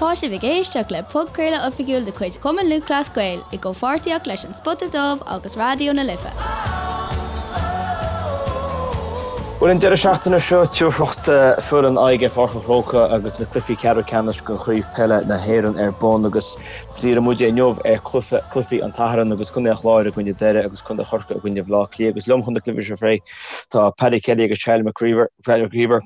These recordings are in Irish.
Tá sibh ag éisteacht le podchraoladh oifigiúil de chuid Chumann Lúthchleas Gael i gcomhpháirtíocht leis An Spota Dubh agus Raidió na Life. Bhuel, an deireadh seachtaine seo, tabharfaidh foireann aghaidh ar Pháirc an Chrócaigh agus na cluichí ceathrú ceannais de Chraobh Peile na hÉireann ar bun agus díreoidh muid inniu ar chluichí an tSathairn agus Contae an Chláir i gcoinne Doire agus Contae Chorcaí i gcoinne Bhaile Átha Cliath agus liom chun na cluichí seo a phlé tá Paddy Kelly agus Charlie McGreever.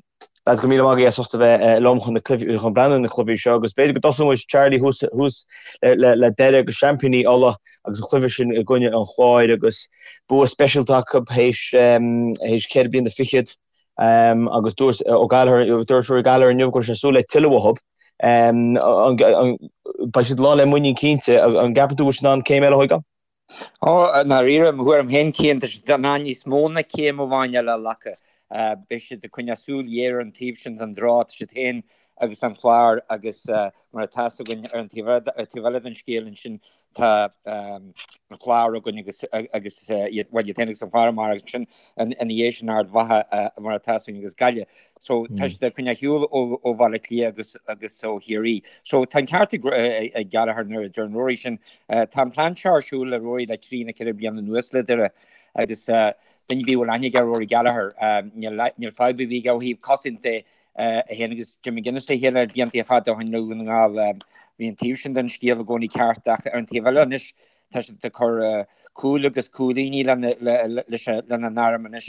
Lads, go raibh míle maith agaibh as ucht a bheith liom chun na cluichí, chun breathnú ar na cluichí seo agus b'fhéidir go dtosóidh muid, Charlie, thuas, thuas le, le Doire agus seaimpíní Uladh agus an cluiche sin i gcoinne an Chláir agus bua speisialta acu théis, théis ceithre bliana fichead agus dúirt Ó Gallchóir, dúirt Rory Gallagher inniu go raibh sé ag súil le tuilleadh uathu. Beidh siad lán le muinín cinnte. An gceapann tú go bhfuil siad in ann céim eile a thógáil? Ó, i ndáiríre, mo thuairim féin, Cian, tá siad in ann níos mó ná céim amháin eile a ghlacadh. Beidh siad ag coinneáil súil ghéar ar an taobh sin den draw, tá siad féin agus an Clár agus mar atá fhios againn ar an taobh eile den scéal ansin tá an Clár againn agus agus iad, bhuel, iad féin agus an Clár amárach agus ansin ina dhiaidh sin Ard Mhacha mar atá fhios againn agus Gaillimh. So tá siad ag coinneáil shiúl ó Bhaile Átha Cliath agus agus ó Chiarraí. So tá an ceart ag Gallagher nuair a deir Rory sin. Tá an plean seo ar siúl le Rory le trí nó ceithre bliana anuas le Doire agus duine ar bith a bhfuil aithne aige ar Rory Gallagher níl níl fadhb ar bith aige ó thaobh cosaint de é féin agus Jim McGuinness le chéile blianta fada ó shin i nDún na nGall. Bhí an taobh sin den scéal i gcónaí ceart ach ar an taobh eile anois Tá siad ag cur cúil agus cúilíní lena n-arm anois.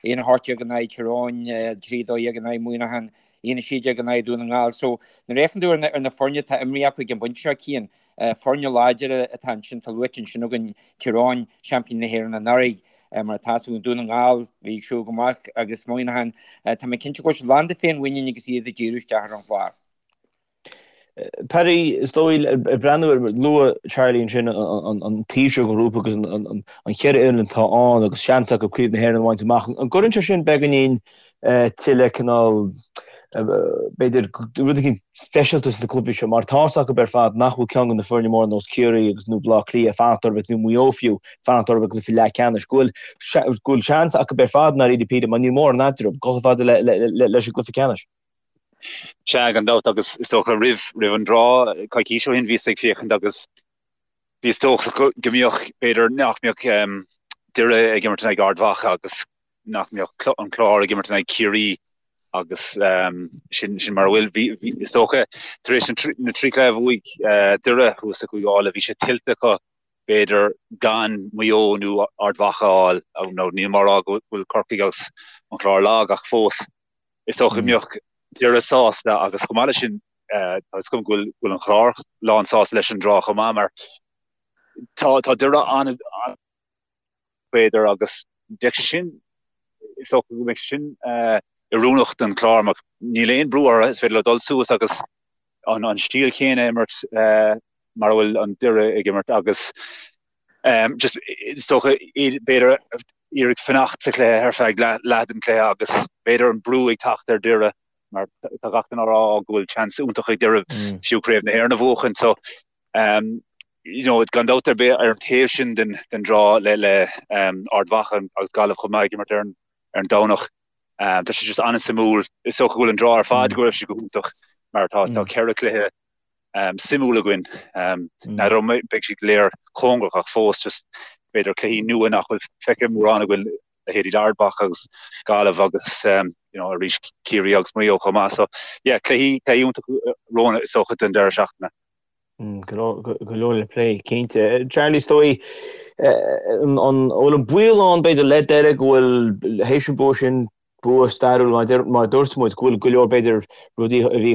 1-18 in aghaidh Tír Eoghain, 3-12 in aghaidh Muineachán, 1-16 in aghaidh Dún na nGall. So nuair a fhéachann tú ar na foirne atá imrithe acu ag an bpointe seo, Cian, foirne láidire atá ansin, tá luaite ansin againn Tír Eoghain, seaimpíní na hÉireann anuraidh, mar atá fhios againn, Dún na nGall, bhí ag siúl go maith agus Muineachán, tá mé cinnte go bhfuil siad lán de féinmhuinín agus iad ag díriú isteach ar an Chlár. Paddy, is dóigh, ag breathnú ar, luaigh Charlie ansin an taobh seo den ghrúpa agus an cheithre fhoireann atá ann agus seans acu Craobh na hÉireann a bhaint amach. An gcuireann sé sin beagáinín tuilleadh cineál, b'fhéidir, rud éicint speisialta sna cluichí seo mar tá's acu ar fad nach bhfuil ceann de na foirne móra nós Ciarraí agus nó Baile Átha Cliath ag fanacht orthu nó Maigh Eo fiú ag fanacht orthu i gcluiche leathcheannais. Go bhfuil go bhfuil seans acu ar fad i ndáiríre píre mar níl mórán eatarthu, dul chomh fada leis an gcluiche ceannais. Sea, gan dabht, agus is dócha roimh, roimh an draw, coicís ó shin bhíos ag féachaint agus bhíos dóchasach go, go mbeadh, b'fhéidir, nach mbeadh Doire ag imirt in aghaidh Ard Mhacha agus nach mbeadh an Clár ag imirt in aghaidh Ciarraí agus sin, sin mar a bhfuil. Bhí, bhí, is dócha, tar éis na trí chluiche a bhuaigh Doire thuas i gCúige Uladh, bhí sé tuillte acu, b'fhéidir, gan Maigh Eo nó Ard Mhacha a fháil, nó níl mé á rá go bhfuil Corcaigh agus an Clár lag ach fós. Is dócha go mbeadh Doire sásta agus chomh maith leis sin tá fhios agam go bhfuil an Clár lán sásta leis an draw chomh maith mar tá tá Doire an b'fhéidir agus bheadh sé sin is dócha go mbeadh sé sin oiriúnach don Chlár mar níl aon brú orthu is féidir leo dul suas agus an an stíl chéanna a imirt mar a bhfuil an Doire ag imirt agus Just is dócha b'fhéidir iarraidh fanacht sa chluiche ar feadh leath den chluiche agus b'fhéidir an brú ag teacht ar Doire mar tá gach duine á rá go bhfuil seans iontach ag Doire fiú Craobh na hÉireann a bhuachan. So you know gan dabht ar bith ar an taobh sin den den draw le le Ard Mhacha agus Gaillimh chomh maith ag imirt ar an ar an Domhnach. Tá sé just an-suimiúil. Is dócha go bhfuil an draw ar fad go raibh sé go hiontach mar tá tá ceithre chluiche suimiúil againn. N'fheadar an mbeidh siad go léir cóngarach ach fós just b'fhéidir cluichí nua nach bhfuil feicthe mórán againn leithéidí Ard Mhacha agus Gaillimh agus you know arís Ciarraí agus Maigh Eo chomh maith. So yeah cluichí cluichí iontach romhainn is dócha don deireadh seachtaine. Go leor le plé, cinnte. Charlie, is dóigh an bhfuil an baol ann b'fhéidir le Doire go bhfuil théis an bua sin bua stairiúil mar a dúirt muid, go bhfuil go leor b'fhéidir rudaí a bhí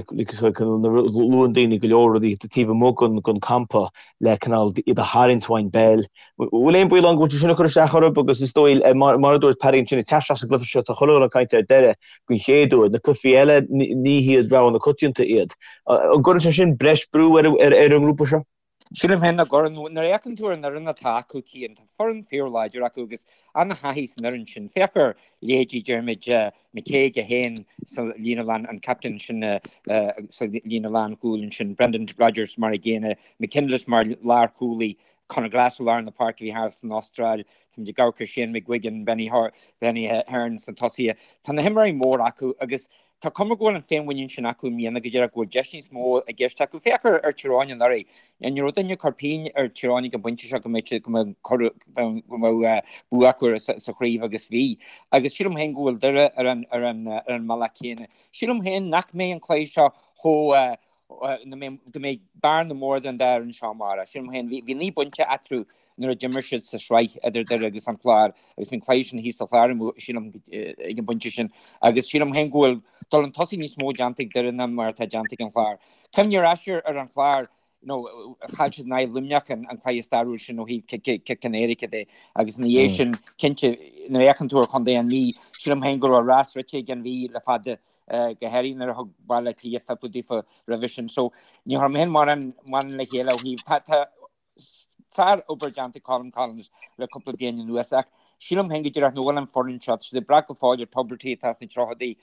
luann daoine go leor rudaí taobh amuigh den campa le cineál iad a tharraingt ón bpeil. Bhfuil aon baol ann go bhfuil sé sin ag cur isteach orthu agus is dóigh mar a dúirt Paddy ansin ag teacht isteach sa gcluiche seo tá chuile dhuine ag caint ar Doire den chéad uair, na cluichí eile ní hiad rogha na coitianta iad. An gcuireann sé sin breis brú ar an ngrúpa seo? Sílim féin nach gcuireann. Nuair a fhéachann tú ar an fhoireann atá acu, Cian, tá foireann fíorláidir acu agus an-thaithí san fhoireann sin. Féach ar leithéidí Diarmuid McCague é féin sa líne lán, an captaen sin sa líne lánchúil ansin, Brendan Rogers mar an gcéanna, McKinless mar lárchúlaí, Conor Glass i lár na páirce a bhí thar san Astráil, táimid ag amharc ar Shane McGuigan, Benny Hearn sna tosaithe. Tá na himreoirí móra acu agus. Tá cuma go bhfuil an féinmhuinín sin acu i mbliana go díreach go bhfuil deis níos mó i gceist acu. Féach ar Tír Eoghain anuraidh. Ní raibh duine ag cur pingin ar Tír Eoghain ag an bpointe seo go mbeadh siad go mbeadh go mbeadh bua acu sa chraobh agus bhí. Agus sílim féin go bhfuil Doire ar an ar an ar an mbealach céanna. Sílim féin nach mbeidh an cluiche seo chomh go mbeidh bearna mór idir an dá fhoireann seo amárach. Sílim féin, bhí 9 bpointe eatarthu nuair a d'imir siad sa sraith idir Doire agus an Clár agus an cluiche sin thíos sa Chlár, sílim, ag an bpointe sin. Agus sílim féin go bhfuil dul chun tosaigh níos mó déanta ag Doire ná mar atá déanta ag an Chlár. Cuimhnigh ar ais ar an Chlár, you know, chaill siad in aghaidh Luimneach an cluiche stairiúil sin ó thaobh cic in éirice de agus ina dhiaidh sin, cinnte, nuair a fhéachann tú ar chontae an Mhí, sílim féin go raibh rás rite ag an Mhí le fada. go háirithe nuair a thug Baile Átha Cliath fiple daofa roimhe sin. So ní chuir mé féin mórán mórán le chéile ó thaobh tá tá sár-obair déanta ag Colm Collins le cúpla bliain anuas ach sílim féin go díreach nach bhfuil an foireann seo, tá siad ag brath go fóill ar Tubridy atá sna tríochaidí,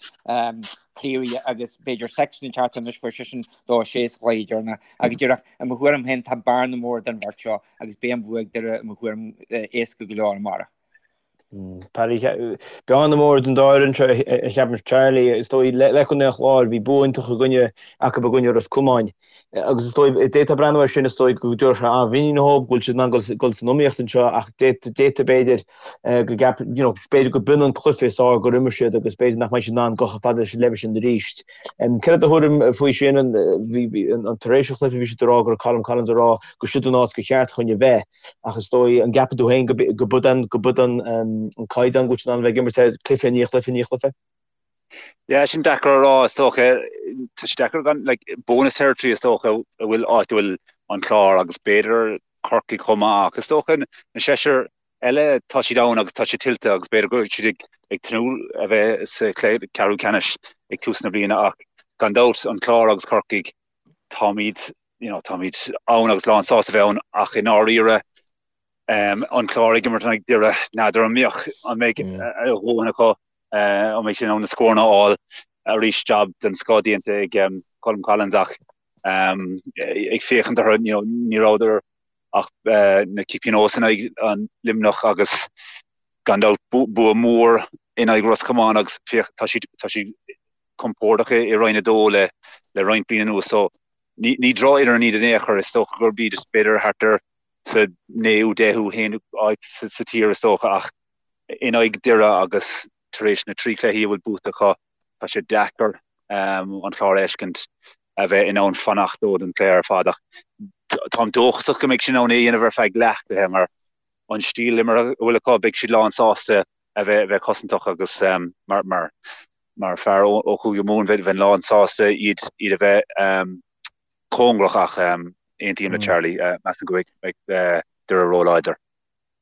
Cleary agus b'fhéidir Sexton ag teacht anois fuair seisean 2-6 sa chluiche deireanach ach go díreach i mo thuairim féin tá bearna mór idir an bheirt seo agus beidh an bua ag Doire i mo thuairim éasca go leor amárach. Paddy, bearna mór idir an dá fhoireann seo a cheapaim Charlie, is dóigh le Contae an Chláir, bhí bua iontach i gcoinne acu i gcoinne Ros Comáin. Agus is dóigh, d'fhéadfá breathnú air sin, is dóigh go dtabharfadh sé an-mhuinín dhóibh, go bhfuil siad in ann dul san iomaíocht anseo ach d'fhéadfadh b'fhéidir go gceap, you know, b'fhéidir go b'in an cluiche is fearr gur imir siad agus b'fhéidir nach mbeidh siad in ann dul chomh fada leis an leibhéal sin arís. Céard é do thuairim faoi sin? An tar éis an chluiche bhí siad ag rá go raibh Colm Collins ag rá gur siod an áit gur cheart chuige a bheith. Ach is dóigh, an gceapann tú féin go b'in an, go b'in an caighdeán go bhfuil siad in ann a bheith ag imirt air cluiche i ndiaidh chluiche i ndiaidh chluiche? Yeah, sin deacair a rá, is dócha. Tá sé deacair gan, like, bonus territory is dócha a bhfuil áit a bhfuil an Clár agus b'fhéidir Corcaigh chomh maith ach is dócha na seisear eile tá siad ann agus tá siad tuillte agus b'fhéidir go bhfuil siad ag ag tnúth a bheith sa cheathrú ceannais ag tús na bliana ach gan dabht an Clár agus Corcaigh táimid you know, táimid ann agus lán sásta a bheith ann ach i ndáiríre an Clár ag imirt in aghaidh Doire, n'fheadar an mbeadh, an mbeidh a dhóthain acu, an mbeidh siad in ann na scóranna a fháil arís, jab den scoth déanta ag Colm Collins ach ag féachaint orthu, you know, ní rabhadar ach na cic pionóis in aghaidh an Luimneach agus gan dabht bua mór in aghaidh Ros Comáin agus féach tá siad tá siad compordach i Roinn 2 le le roinnt bliain anuas so ní ní drochfhoireann iad in aon chor, is dócha gurb iad b'fhéidir thart ar sa naoú, deichiú haonú áit sa tír is dócha ach in aghaidh Doire agus tar éis na dtrí chluichí a bhfuil buaite acu tá sé deacair an Clár a fheiscint a bheith in ann fanacht leo don chluiche ar fad ach táim dóchasach go mbeidh siad in ann é a dhéanamh ar feadh leathchluiche mar an stíl imeartha a bhfuil acu beidh siad lán sásta a bheith bheith cosantach agus mar mar mar fear ó Chúige Mumhan bheinn lán sásta iad iad a bheith cóngarach ach aontaím le Charlie measaim go mbeidh Doire róláidir.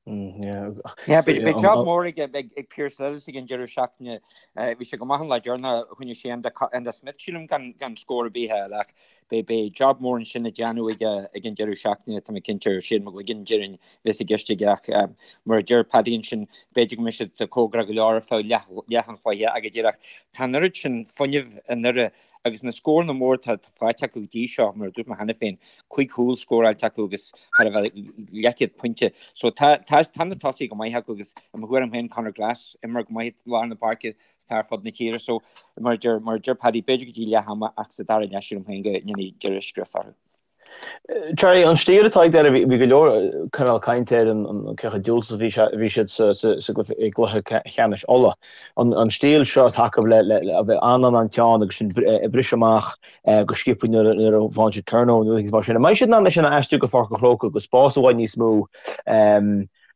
Yeah, beidh job mór ag ag Pearse Lillis ag an deireadh seachtaine. Bhí sé go maith an lá deireanach choinnigh sé Enda Smith sílim gan gan scór ar bith a fháil ach beidh beidh job mór ansin le déanamh ag ag an deireadh seachtaine tá mé cinnte ar Shane McGuigan déarfainn bheas i gceist aige ach mar a deir Paddy ansin b'fhéidir go mbeidh siad cóngarach go leor ar feadh leath leath an chluiche ach go díreach tá an oiread sin fuinnimh i nDoire agus na scóranna mór atá faighte acu go dtí seo, mar a dúirt mé cheana féin, 5 chúl scóráilte acu agus thar a bheith leathchéad pointe. So tá tá tá na tosaithe go maith acu agus i mo thuairim féin Conor Glass imreoir go maith i lár na páirce is atá ar fud na tíre. So mar a deir mar a deir Paddy b'fhéidir go dtí leath ama ach sa dara leath sílim féin go ndéanfaidh Doire scrios orthu. Charlie, an stíl atá ag Doire, bhí go leor cineál cainte ar an cé chomh diúltach is a bhí siad sa i gcluiche ceannais Uladh. An stíl seo atá acu le a bheith an-an-an-teann agus sin ag briseadh amach go sciobtha nuair a bhain siad turnover nó rudaí mar sin. An mbeidh siad in ann é sin a aistriú go Pháirc an Chrócaigh agus spás i bhfad níos mó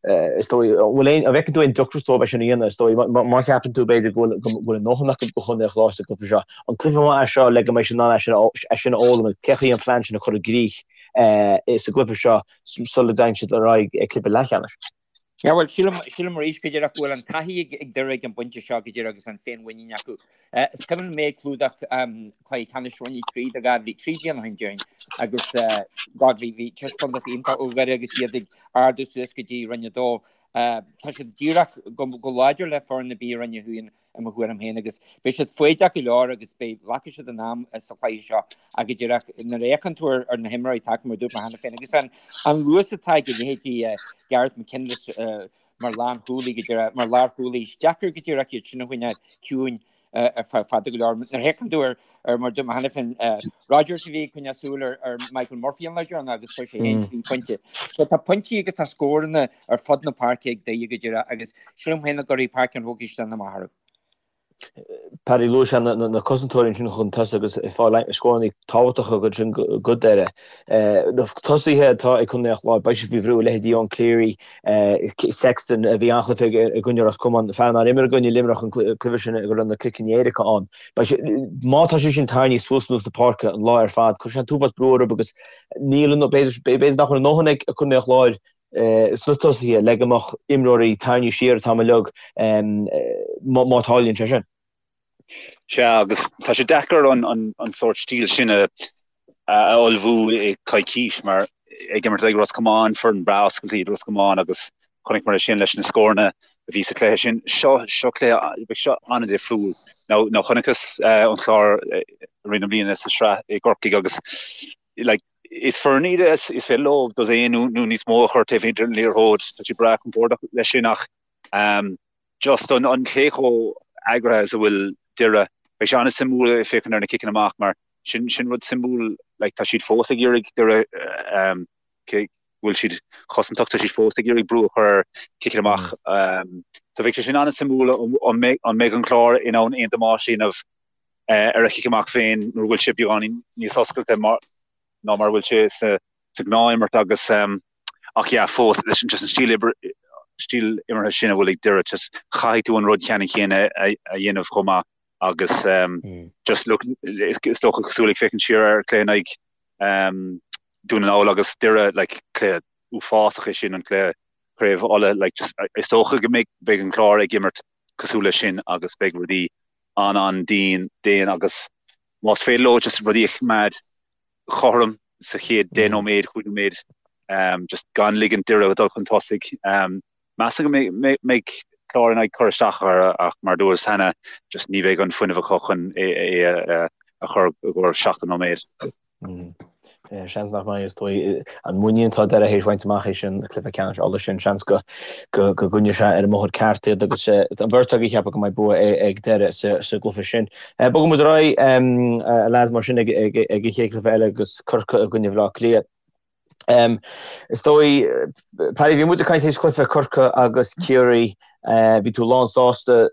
Is dóigh, an bhfuil aon, an bhfeiceann tú aon deacracht dóibh é sin a dhéanamh? Is dóigh, má cheapann tú, b'fhéidir, go bhfuil, go bhfuil a ndóthain acu do Chontae an Chláir sa gcluiche seo, an cluiche maith é seo le go mbeidh siad in ann é sin a, é sin a fhoghlaim, cén chaoi an plean sin a chur i gcrích sa gcluiche seo sula dtéann siad ar aghaidh ag cluiche leathcheannais? Yeah, bhuel, sílim, sílim arís go díreach go bhfuil an taithí ag, ag Doire ag an bpointe seo go díreach agus an féinmhuinín acu. Is cuimhin liom mé ag clúdach cluiche ceannais Roinn 3 do 2003 bliain ó shin déarfainn agus God bhí bhí taispeántas iontach ó Dhoire agus iad ag ardú suas go dtí Roinn 2. Tá siad díreach go go láidir le foireann ar bith i Roinn 1 i mo thuairim féin agus beidh siad foighdeach go leor agus beidh glacfaidh siad a n-am sa chluiche seo ach go díreach nuair a fhéachann tú ar na himreoirí atá acu mar a dúirt mé cheana féin agus an an luas atá ag a leithéidí Gareth McKinless mar lánchúlaí go díreach mar lárchúlaí is deacair go díreach iad sin a choinneáil ciúin. ar feadh fada go leor. Nuair a fhéachann tú ar ar mar dúirt mé cheana féin Rodgers a bhí ag coinneáil súil ar ar Michael Murphy an lá deireanach agus fuair sé féin 3 phointe. So tá pointí agus tá scóranna ar fud na páirce ag Doire go díreach agus sílim féin go gcuirfidh Páirc an Chrócaigh isteach amach orthu. Paddy luaigh sé na cosantóirí ansin chun tosaigh agus ag fáil scóranna tábhachtacha ansin do Dhoire. Na tosaithe atá ag Contae an Chláir, beidh siad faoi bhrú, leithéidí Eoin Cleary, Sexton a bhí an-chluiche aige i gcoinne Ros Comáin, fear nár imir i gcoinne Luimneach an cluiche sin go raibh na ciceanna éirice ann. Beidh sé, má tá sé sin tarraingthe suas anuas na páirce an lá ar fad, cuirfidh sé an t-uafás brú orthu agus níl, b'fhéidir nach bhfuil a ndóthain ag Contae an Chláir sna tosaithe le go mbeadh imreoirí tarraingthe siar an t-am uilig má tharlaíonn sé sin. Sea, agus tá sé deacair an sórt stíl sin a ullmhú i coicís mar ag imirt ag Ros Comáin, foireann breá oscailte iad Ros Comáin agus chonaiceamar é sin leis na scóranna a bhí sa chluiche sin. Seo, seo cluiche, beidh seo an-difriúil. Now, now chonaiceas an Clár i rith na bliana sa sraith i gCorcaigh agus like, Is foireann iad is féidir leo dosaen nó níos mó a chur taobh thiar den liathróid. Tá siad breá compordach leis sin ach just an cé chomh eagraithe is a bhfuil Doire. Beidh sé an-suimiúil ag féachaint ar na ciceanna amach mar sin sin rud suimiúil like tá siad fós ag iarraidh Doire cé go bhfuil siad cosantach tá siad fós ag iarraidh brú a chur ar ciceanna amach. So bheidh sé sin an-suimiúil an mbeidh an Clár in ann aon damáiste a dhéanamh ar a chic amach féin nuair a bhfuil sé beagáinín níos oscailte ná mar a bhfuil sé sa ghnáthimirt agus ach yeah fós leis an just an stíl oibre stíl imeartha sin a bhfuil ag Doire just caithfidh tú an rud ceannann céanna a dhéanamh chomh maith agus just look is dócha cosúil ag féachaint siar ar cluiche in aghaidh Dún na nGall agus Doire like cluiche uafásach é sin an cluiche Craobh Uladh like just is dócha go mbeidh beidh an Clár ag imirt cosúil leis sin agus beidh rudaí an-an-dian dian agus más féidir leo just rudaí a choimeád cothrom sa chéad 10 nóiméad, 5 nóiméad, just gan ligint Doire dul chun tosaigh. Measaim go mbeidh Clár in ann cur isteach air ach mar a dúras cheana just ní bheidh an fuinneamh acu chun é a chur i gcomhair 70 nóiméad. Seans nach mbeidh, is dóigh. An muinín atá Doire théis bhaint amach théis an cluiche ceannais Uladh sin, seans go gcoinneoidh sé ar an mbóthar ceart iad agus an bheirt agaibh ag ceapadh go mbeidh bua ag Doire sa gcluiche sin. Bogfaidh muid ar aghaidh, a lads, mar sin ag an chéad chluiche eile agus Corcaigh i gcoinne Bhaile Átha Cliath. Is dóigh, Paddy, bhí muid ag caint théis cluiche Corcaigh agus Ciarraí, bhí tú lán sásta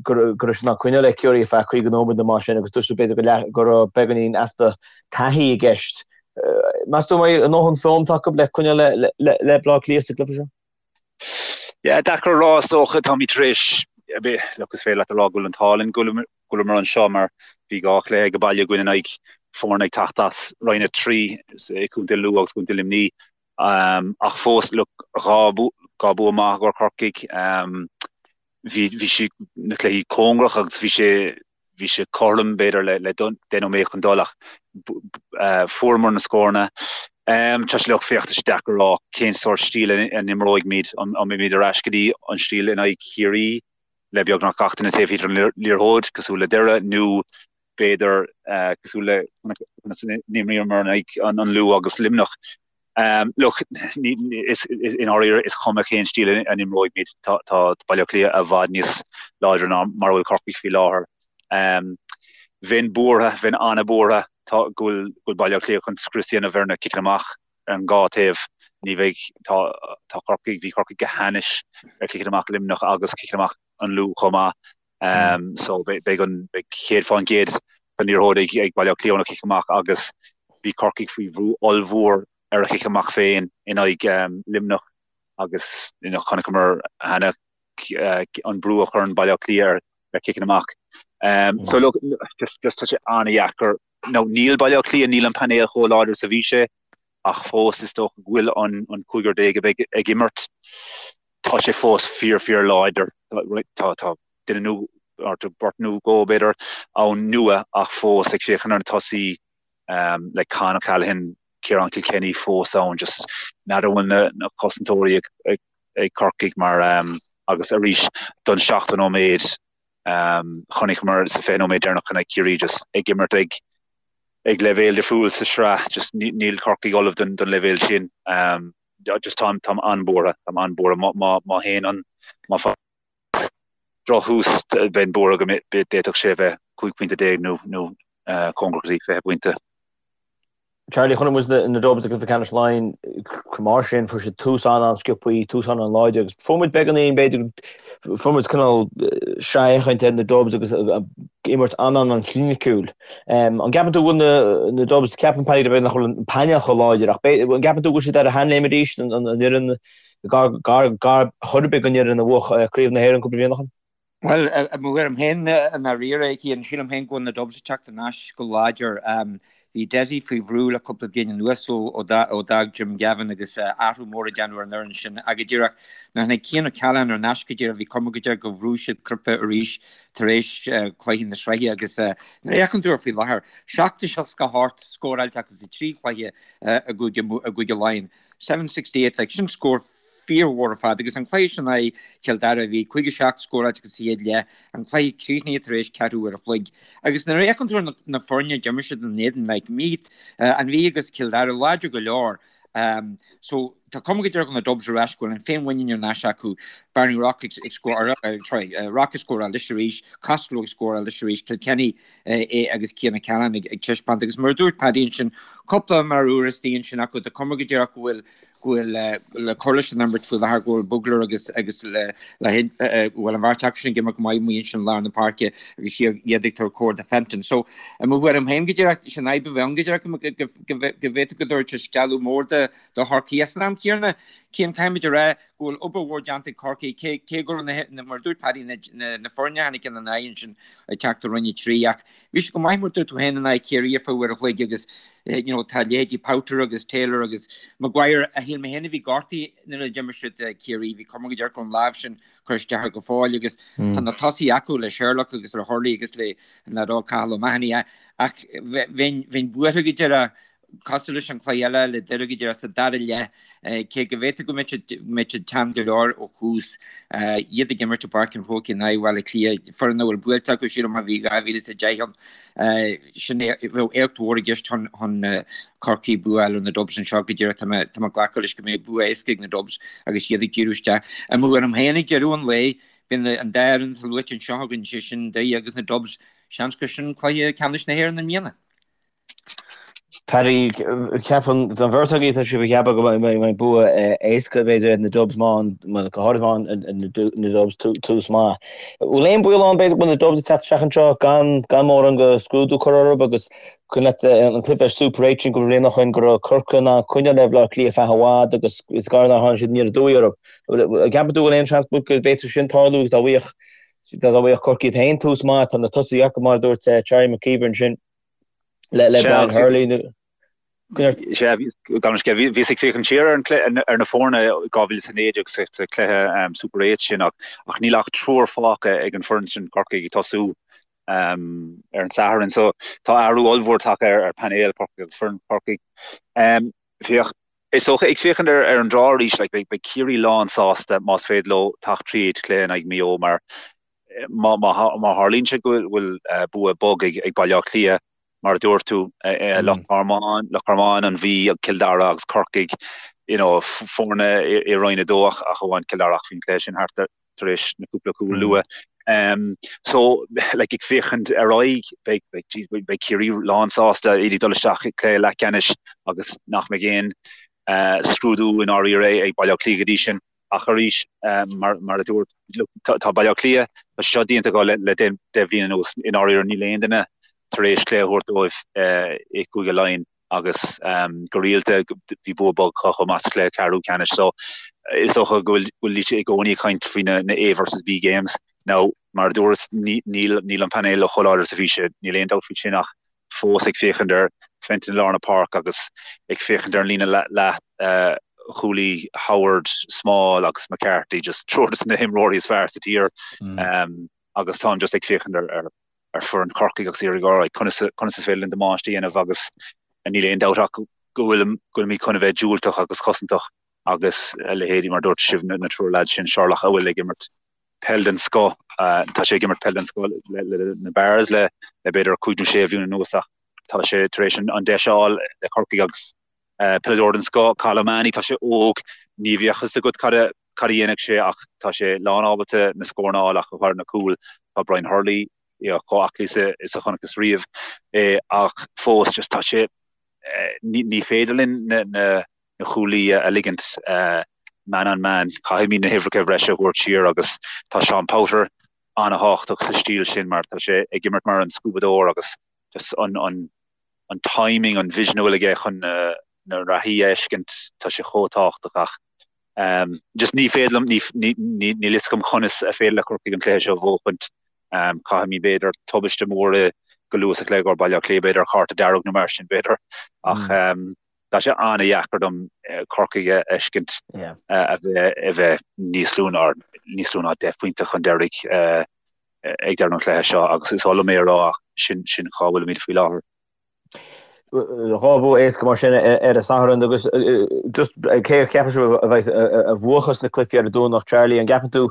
go raibh siad in ann coinneáil le Ciarraí ar feadh 50 nóiméad nó mar sin agus dúirt tú b'fhéidir go raibh beagáinín easpa taithí i gceist. Meas tú an mbeidh a ndóthain foghlamtha acu le coinneáil le Baile Átha Cliath sa gcluiche seo? Yeah, deacair a rá is dócha, táimid tar éis, look, is féidir leat a rá go bhfuil an t-ádh linn go bhfuileamar anseo mar bhí 2 chluiche ag baile againn in aghaidh foirne ag teacht as Roinn 3 i gContae Lú agus Contae Luimnigh. Ach fós, look, 2 bua maith i gcomhair Chorcaigh. Bhí, bhí sé, na cluichí cóngarach agus bhí sé, bhí sé cothrom b'fhéidir le le 10 nóiméad chun dul ach fuaireamar na scóranna. Tá sé look, féach, tá sé deacair a rá cén sórt stíl a n-imreoidh an mbeimid ar ais go dtí an stíl in aghaidh Chiarraí le beagnach gach duine taobh thiar den liathróid cosúil le Doire nó b'fhéidir cosúil le conas a d'imríomar in aghaidh an Lú agus Luimneach. Look, i ndáiríre is cuma cén stíl a n-imreoidh muid, tá Baile Átha Cliath i bhfad níos láidre ná mar a bhfuil Corcaigh faoi láthair. Bheinn buartha, bheinn an-bhuartha go bhfuil Baile Átha Cliath chun scrios a dhéanamh ar na ciceanna amach ar an dhá taobh. Ní bheidh, tá Corcaigh, bhí Corcaigh go hainnis ar chiceanna amach Luimneach agus ciceanna amach an Lú chomh maith. So beidh an beidh 100% den liathróid ag ag Baile Átha Cliath óna chic amach agus bhí Corcaigh faoi bhrú ollmhór ar a chic amach féin in aghaidh Luimneach agus you know chonaiceamar cheana an brú a chuireann Baile Átha Cliath ar ar ciceanna amach. So look just just tá sé an-dheacair. Now níl Baile Átha Cliath níl an painéal chomh láidir is a bhí sé ach fós is dócha go bhfuil an an cúigear déag a bheidh ag imirt tá sé fós fíor fíor láidir. Tá tá duine nó or beirt nó dhó b'fhéidir ann nua ach fós ag féachaint ar na tosaí le Con O'Callaghan, Ciarán Kilkenny fós ann just n'fheadar an bhfuil na na cosantóirí ag ag ag Corcaigh mar agus arís don 70 nóiméad chonaiceamar sa 20 nóiméad deireanach in aghaidh Ciarraí just ag imirt ag ag leibhéal difriúil sa sraith just níl Corcaigh ullamh don don leibhéal sin. Just táim táim an-bhuartha, táim an-bhuartha má má má théann an má drochthús, bheinn buartha go d'fhéadfadh sé a bheith 15 pointe nó nó cóngarach go dtí 20 pointe. Charlie, chonaic muid na Dubs i gcluiche ceannais Laighean chomh maith sin, fuair siad tús an-an-sciobthaí, tús an-an-láidir agus fuair muid beagáinín, b'fhéidir, fuair muid cineál sraith-fhéachaint ar na Dubs agus imirt an-an-chliniciúil. An gceapann tú go bhfuil na Dubs, ceapann Paddy b'fhéidir nach bhfuil an painéal chomh láidir ach an gceapann tú go bhfuil siad ar a sheanléim arís, an fhoireann gar gar chor ar bith don fhoireann a bhuaigh Craobh na hÉireann cúpla bliain ó shin? Bhuel, i mo thuairim féin, i ndáiríre, Cian, sílim féin go bhfuil na Dubs ag teacht ar ais go láidir. Bhí Dessie faoi bhrú le cúpla bliain anuas ó d'fhág Jim Gavin agus athrú mór a déanamh ar an fhoireann sin. Ach go díreach, nuair a tháinig Cian O'Callaghan ar ais go díreach, bhí cuma go díreach go bhrúigh siad cnaipe arís tar éis cluiche na sraithe agus nuair a fhéachann tú air faoi láthair, 7-68 scóráilte acu sa trí chluiche i gCúige Laighean. 768, like, sin scór fíormhór ar fad agus an cluiche sin in aghaidh Chill Dara bhí 57 scóráilte acu sa chéad leath, an cluiche críochnaithe tar éis ceathrú uair a chloig. Agus nuair a fhéachann tú ar na foirne a d'imir siad ina n-éadan, like, Meath, an Mhí agus Cill Dara láidir go leor. Um, so tá cuma go díreach na Dubs ar ais go bhfuil an féinmhuinín ar ais acu. Barney Rock ag scóráil, sorry, Rock ag scóráil anois arís, Costello ag scóráil anois arís, Kilkenny é agus Cian O'Callaghan ag taispeáint agus mar a dúirt Paddy ansin, cúpla imreoir istigh ansin acu, tá cuma go díreach go bhfuil go bhfuil le cur leis an imirt faoi láthair go bhfuil Bugler agus agus le le go bhfuil an bheirt acu sin ag imirt go maith amuigh ansin lár na páirce agus iad ag tabhairt cóir do Fenton. So i mo thuairim féin go díreach sin fhadhb a bheith ann go díreach go bhféadfadh go dtabharfadh sé stealladh mór do do Chorcaigh. San am céanna, Cian caithfimid a rá go bhfuil obair mhór déanta ag Corcaigh, cé cé go raibh na, mar a dúirt Paddy, na, na, na foirne a tháinig ina n-aghaidh ansin ag teacht ó Roinn 3 ach bhí siad go maith mar a dúirt tú féin in aghaidh Ciarraí ar feadh uair a chloig agus you know, tá leithéidí Powter agus Taylor agus Maguire a shíl mé féin a bhí gortaithe nuair a d'imir siad Ciarraí, bhí cuma go díreach go raibh an lámh sin cur isteach air go fóill agus tá na tosaithe acu le Sherlock agus le Hurley agus le an leaid óg Cathal O'Mahony ach bheinn bheinn buartha go díreach Cosúil leis an chluiche eile le Doire go díreach sa dara leath, cé go bhféadfadh go mbeadh siad teann go leor ó thús, iad ag imirt i bPáirc an Chrócaigh in aghaidh Bhaile Átha Cliath, foireann a bhfuil buailte acu, sílim, ó bhí 2010 ann. Sin é, bheadh éacht mhór i gceist chun Corcaigh bua a fháil ar na Dubs anseo go díreach. Tá mé ag glacadh leis go mbeidh bua éasca ag na Dubs agus iad ag díriú isteach. I mo thuairim féin ag deireadh an lae, bíonn an dá fhoireann atá luaite anseo againn, sé sin Doire agus na Dubs, seans gur sin cluiche ceannais na hÉireann i mbliana. Paddy, ceapann an bheirt agaibh tá sibh ag ceapadh go mbeidh bua éasca b'fhéidir ag na Dubs má go háirithe má na Dubs tús maith. Bhfuil aon baol ann b'fhéidir go bhfuil na Dubs ag teacht isteach anseo gan gan mórán de scrúdú curtha orthu agus cuimhin leat an cluiche Super 8 sin cúpla bliain ó shin go raibh Corcaigh in ann coinneáil le Baile Átha Cliath feadh i bhfad agus is gar nár tháinig siad aniar aduaidh orthu. An gceapann tú go bhfuil aon seans go bhféadfadh sin tarlú agus dá bhfaigheadh dá bhfaigheadh Corcaigh iad féin tús maith tá na tosaithe acu mar a dúirt Charlie McKeever ansin. le le Brian Hurley nó Sea, bhíos ag féachaint siar ar na foirne 2019 sa chluiche Super 8 sin ach níl ach triúr fágtha ag an foireann sin Corcaigh ag tosú ar an Satharn. So tá athrú ollmhór tagtha ar painéal Chorcaigh agus foireann Chorcaigh. Féach, is dócha, ag féachaint ar an draw arís, like, beidh Ciarraí lán sásta más féidir leo teacht tríd cluiche in aghaidh Maigh Eo mar Má tharlaíonn sé go bhfuil bua bog ag Baile Átha Cliath, mar a dúirt tú, Loch Garman, Loch Garman, an Mhí, Cill Dara agus Corcaigh, you know, foirne i Roinn 2 ach amháin Cill Dara ach bhí an cluiche sin thart tar éis na cúpla cúl luath. So, like, ag féachaint ar aghaidh, beidh, beidh, jeez, beidh Ciarraí lán sásta iad ag dul isteach i gcluiche leathcheannais agus nach mbeidh aon scrúdú i ndáiríre ag Baile Átha Cliath go dtí sin. Ach arís, mar a dúirt, tá Baile Átha Cliath, tá sé seo déanta acu le 10 bhliain anuas, i ndáiríre níl aon duine tar éis cluiche a thabhairt dóibh i gCúige Laighean agus go rialta bhí bua bog acu chomh maith sa chluiche ceathrú ceannais. So is dócha go bhfuil siad i gcónaí ag caint faoi na A versus B games. Now, mar a dúras, níl an painéal chomh láidir is a bhí sé, níl aon dabht faoi sin ach fós ag féachaint ar Fenton i lár na páirce agus ag féachaint ar an líne leath chúlaí Howard, Small agus McCarthy, just triúr de na himreoirí is fearr sa tír agus táim just ag féachaint ar ar foireann Chorcaigh agus iarraidh alright conas conas is féidir linn damáiste a dhéanamh agus níl aon dabht ach go bhfuil go bhfuilimid chun a bheith diúltach agus cosantach agus a leithéidí mar dúirt sibh na triúr lads sin Sherlock a bhfuil ag imirt peil den scoth. Tá sé ag imirt peil den scoth le na Barrs le b'fhéidir 5 nó 6 bhliain anuas ach tá sé tar éis an deis a fháil le Corcaigh agus peileadóir den scoth, Cathal O'Mahony, tá sé óg, ní bheadh fhios agat cad a. cad a dhéanfaidh sé ach tá sé lán ábalta na scóranna a fháil ach go háirithe na cúil. Tá Brian Hurley chomh aclaí is a chonacthas riamh é ach fós just tá sé ní féidir linn na na cúlaí a ligint man on man. Caithfimid na huimhreacha bhreise a thabhairt siar agus tá Seán Powter an-thábhachtach sa stíl sin mar tá sé ag imirt mar an scuabadóir agus just an an an timing, an vision a bhfuil aige chun na na reathaí a fheiscint, tá sé chomh tábhachtach ach just ní féidir liom, ní ní níl fhios agam conas a féidir le Corcaigh an cluiche seo a bhuachaint. Caithfimid b'fhéidir tubaiste mór i go luath sa chluiche go Baile Átha Cliath b'fhéidir cárta dearg nó mar sin b'fhéidir ach tá sé an-dheacair dom Corcaigh a fheiscint a bheith a bheith níos lú ná níos lú ná 10 bpointe chun deiridh ag deireadh an chluiche seo agus is oth liom é a rá ach sin sin cá bhfuilimid faoi láthair. Dhá bhua éasca mar sin ar an Satharn agus just cé a cheapann sibh a bheidh a bhuachas na cluichí ar an Domhnach, Charlie, an gceapann tú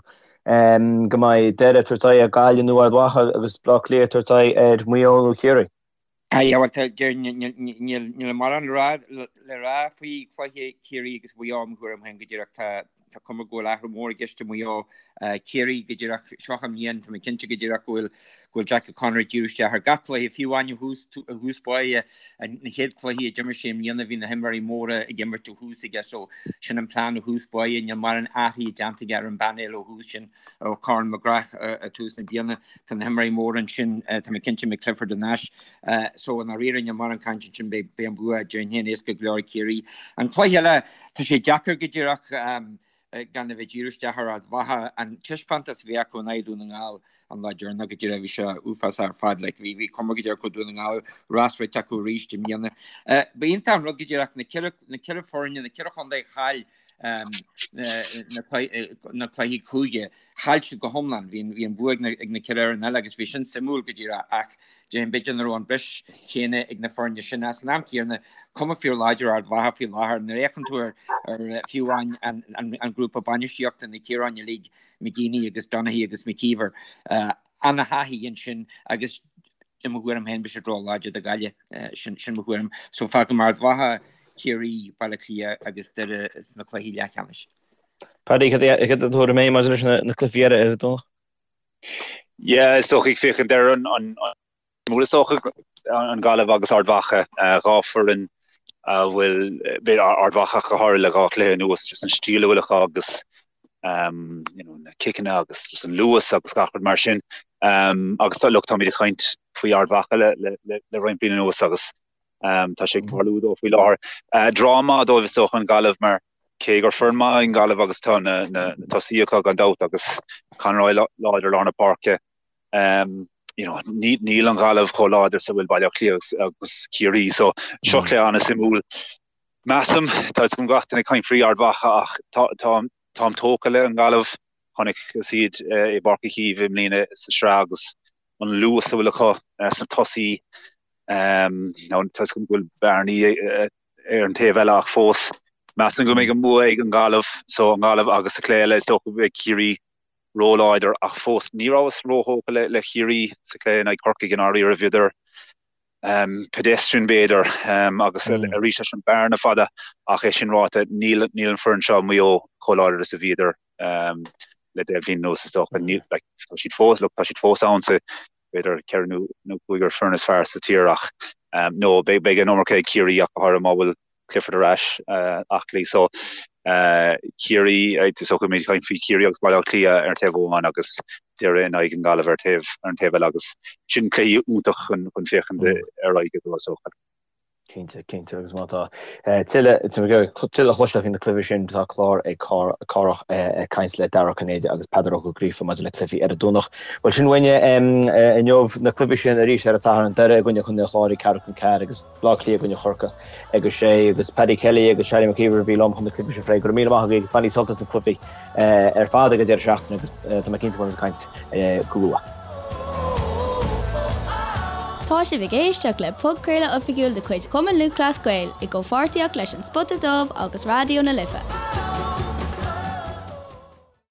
go mbeidh Doire ag tabhairt aghaidh ar Ghaillimh nó Ard Mhacha agus Baile Átha Cliath ag tabhairt aghaidh ar Mhaigh Eo nó Ciarraí? Aye, bhuel, tá, deir, níl, níl mórán le rá, le rá faoi chluiche Chiarraí agus Mhaigh Eo, mo thuairim féin go díreach. Tá, tá cuma go bhfuil athrú mór i gceist i Maigh Eo. Ciarraí go díreach, seo an bhliain, tá mé cinnte go díreach go bhfuil, go bhfuil Jack O'Connor ag díriú isteach ar gach cluiche, fiú amháin ó thús, ó thús báire, na chéad cluichí a d'imir sé i mbliana bhí na himreoirí móra ag imirt ó thús aige so sin an plean ó thús báire, níl mórán athraithe déanta aige ar an bpainéal ó thús sin ó Conor McGrath ag tús na bliana. Tá na himreoirí móra ansin, tá mé cinnte mbeidh Clifford thar n-ais. So i ndáiríre níl mórán cainte ansin, beidh an bua déarfainn féin éasca go leor ag Ciarraí. An cluiche eile, tá sé deacair go díreach gan a bheith ag díriú isteach ar Ard Mhacha. An taispeántas a bhí acu in aghaidh Dún na nGall an lá deireanach go díreach bhí sé uafásach ar fad. Like, bhí bhí cuma go díreach go Dún na nGall rás rite acu arís i mbliana. Ba iontach an rud go díreach na ceithre foirne, na ceithre chontae a chaill na cluichí cúige. Chaill siad go hiomlán. Bhí an bua ag na ceithre fhoireann eile agus bhí sin suimiúil go díreach ach déarfainn b'fhéidir nach raibh an bris céanna ag na foirne sin. Ach san am céanna, cuma fíor láidir Ard Mhacha faoi láthair. Nuair a fhéachann tú ar fiú amháin an grúpa bainistíochta, na Ciaráin uilig, McGeeney agus Donaghy agus McKeever, ana-thaithí ansin agus i mo thuairim féin beidh siad ró-láidir do Ghaillimh. Sin sin mo thuairim. So fágfaidh mé Ard Mhacha, Ciarraí, Baile Átha Cliath agus Doire sna cluichí leathcheannais. Paddy, cad é do thuairim féin maidir leis na cluichí eile ar an Domhnach? Yeah, is dócha ag féachaint ar an an is dócha an Ghaillimh agus Ard Mhacha, dhá foireann a bhfuil b'fhéidir Ard Mhacha go háirithe le dhá chluiche anuas, just an stíl a bhfuil acu agus um, you know, na ciceanna agus just an luas agus gach rud mar sin. Um, agus tá, look, táimid ag caint faoi Ard Mhacha le, le, le, le roinnt bliain anuas agus um, tá sé ag tarlú dóibh faoi láthair. Uh, draw maith dóibh is dócha an Ghaillimh mar cé gur foireann maith an Ghaillimh agus tá na, na, na tosaí acu gan dabht agus Conroy láidir lár na páirce. Um, you know, ní, níl an Ghaillimh chomh láidir is a bhfuil Baile Átha Cliath agus, agus Ciarraí, so seo cluiche an-suimiúil. Measaim, tá fhios agam gach duine ag caint faoi Ard Mhacha ach táim tógtha le an Ghaillimh. Chonaiceas iad i bPáirc Uí Chaoimh i mbliana sa sraith agus an luas a bhfuil acu sna tosaí. Tá fhios agam go bhfuil bearnaí ar an taobh eile ach fós measaim go mbeidh an bua ag an Ghaillimh, so an Ghaillimh agus sa chluiche eile is dócha go mbeidh Ciarraí róláidir ach fós ní rabhas róthógtha le Ciarraí sa chluiche in aghaidh Chorcaigh i ndáiríre. Bhíodar pedestrian b'fhéidir agus arís leis an bearna fada ach é sin ráite níl an foireann seo Maigh Eo chomh láidir is a bhíodar le 10 bhliain anuas is dócha. Níl like tá siad fós look tá siad fós ann sa b'fhéidir ceithre nó nó cúigear foireann is fearr sa tír ach no beidh beidh an iomarca ag Ciarraí ach go háirithe má bhfuil Clifford ar ais aclaí. So Ciarraí, is dócha go mbeimid ag caint faoi Chiarraí agus Baile Átha Cliath ar an taobh amháin agus Doire in aghaidh an Ghaillimh ar taobh ar an taobh eile agus sin cluichí iontach chun chun féachaint ar aghaidh go is dócha. Cinnte, cinnte agus má tá tuilleadh tuilleadh a chloisteáil faoi na cluichí sin tá clár ag Cárthach ag caint le Dara Ó Cinnéide agus Peadar Ó Gríofa maidir le cluichí ar an Domhnach. Bhuel sin uainne inniu na cluichí sin arís ar an Satharn Doire i gcoinne Chontae an Chláir ag ceathrú chun ceathair agus Baile Átha Cliath i gcoinne Chorcaí ag a sé agus Paddy Kelly agus Charlie McKeever a bhí liom chun na cluichí seo a phlé. Go raibh míle maith agaibh agus bainigí sult as na cluichí ar fad ag an deireadh seachtaine agus tá mé cinnte go mbeimid ag caint go luath. Tá sibh ag éisteacht le podchraoladh oifigiúil de chuid Chumann Lúthchleas Gael i gcomhpháirtíocht leis An Spota Dubh agus Raidió na Life.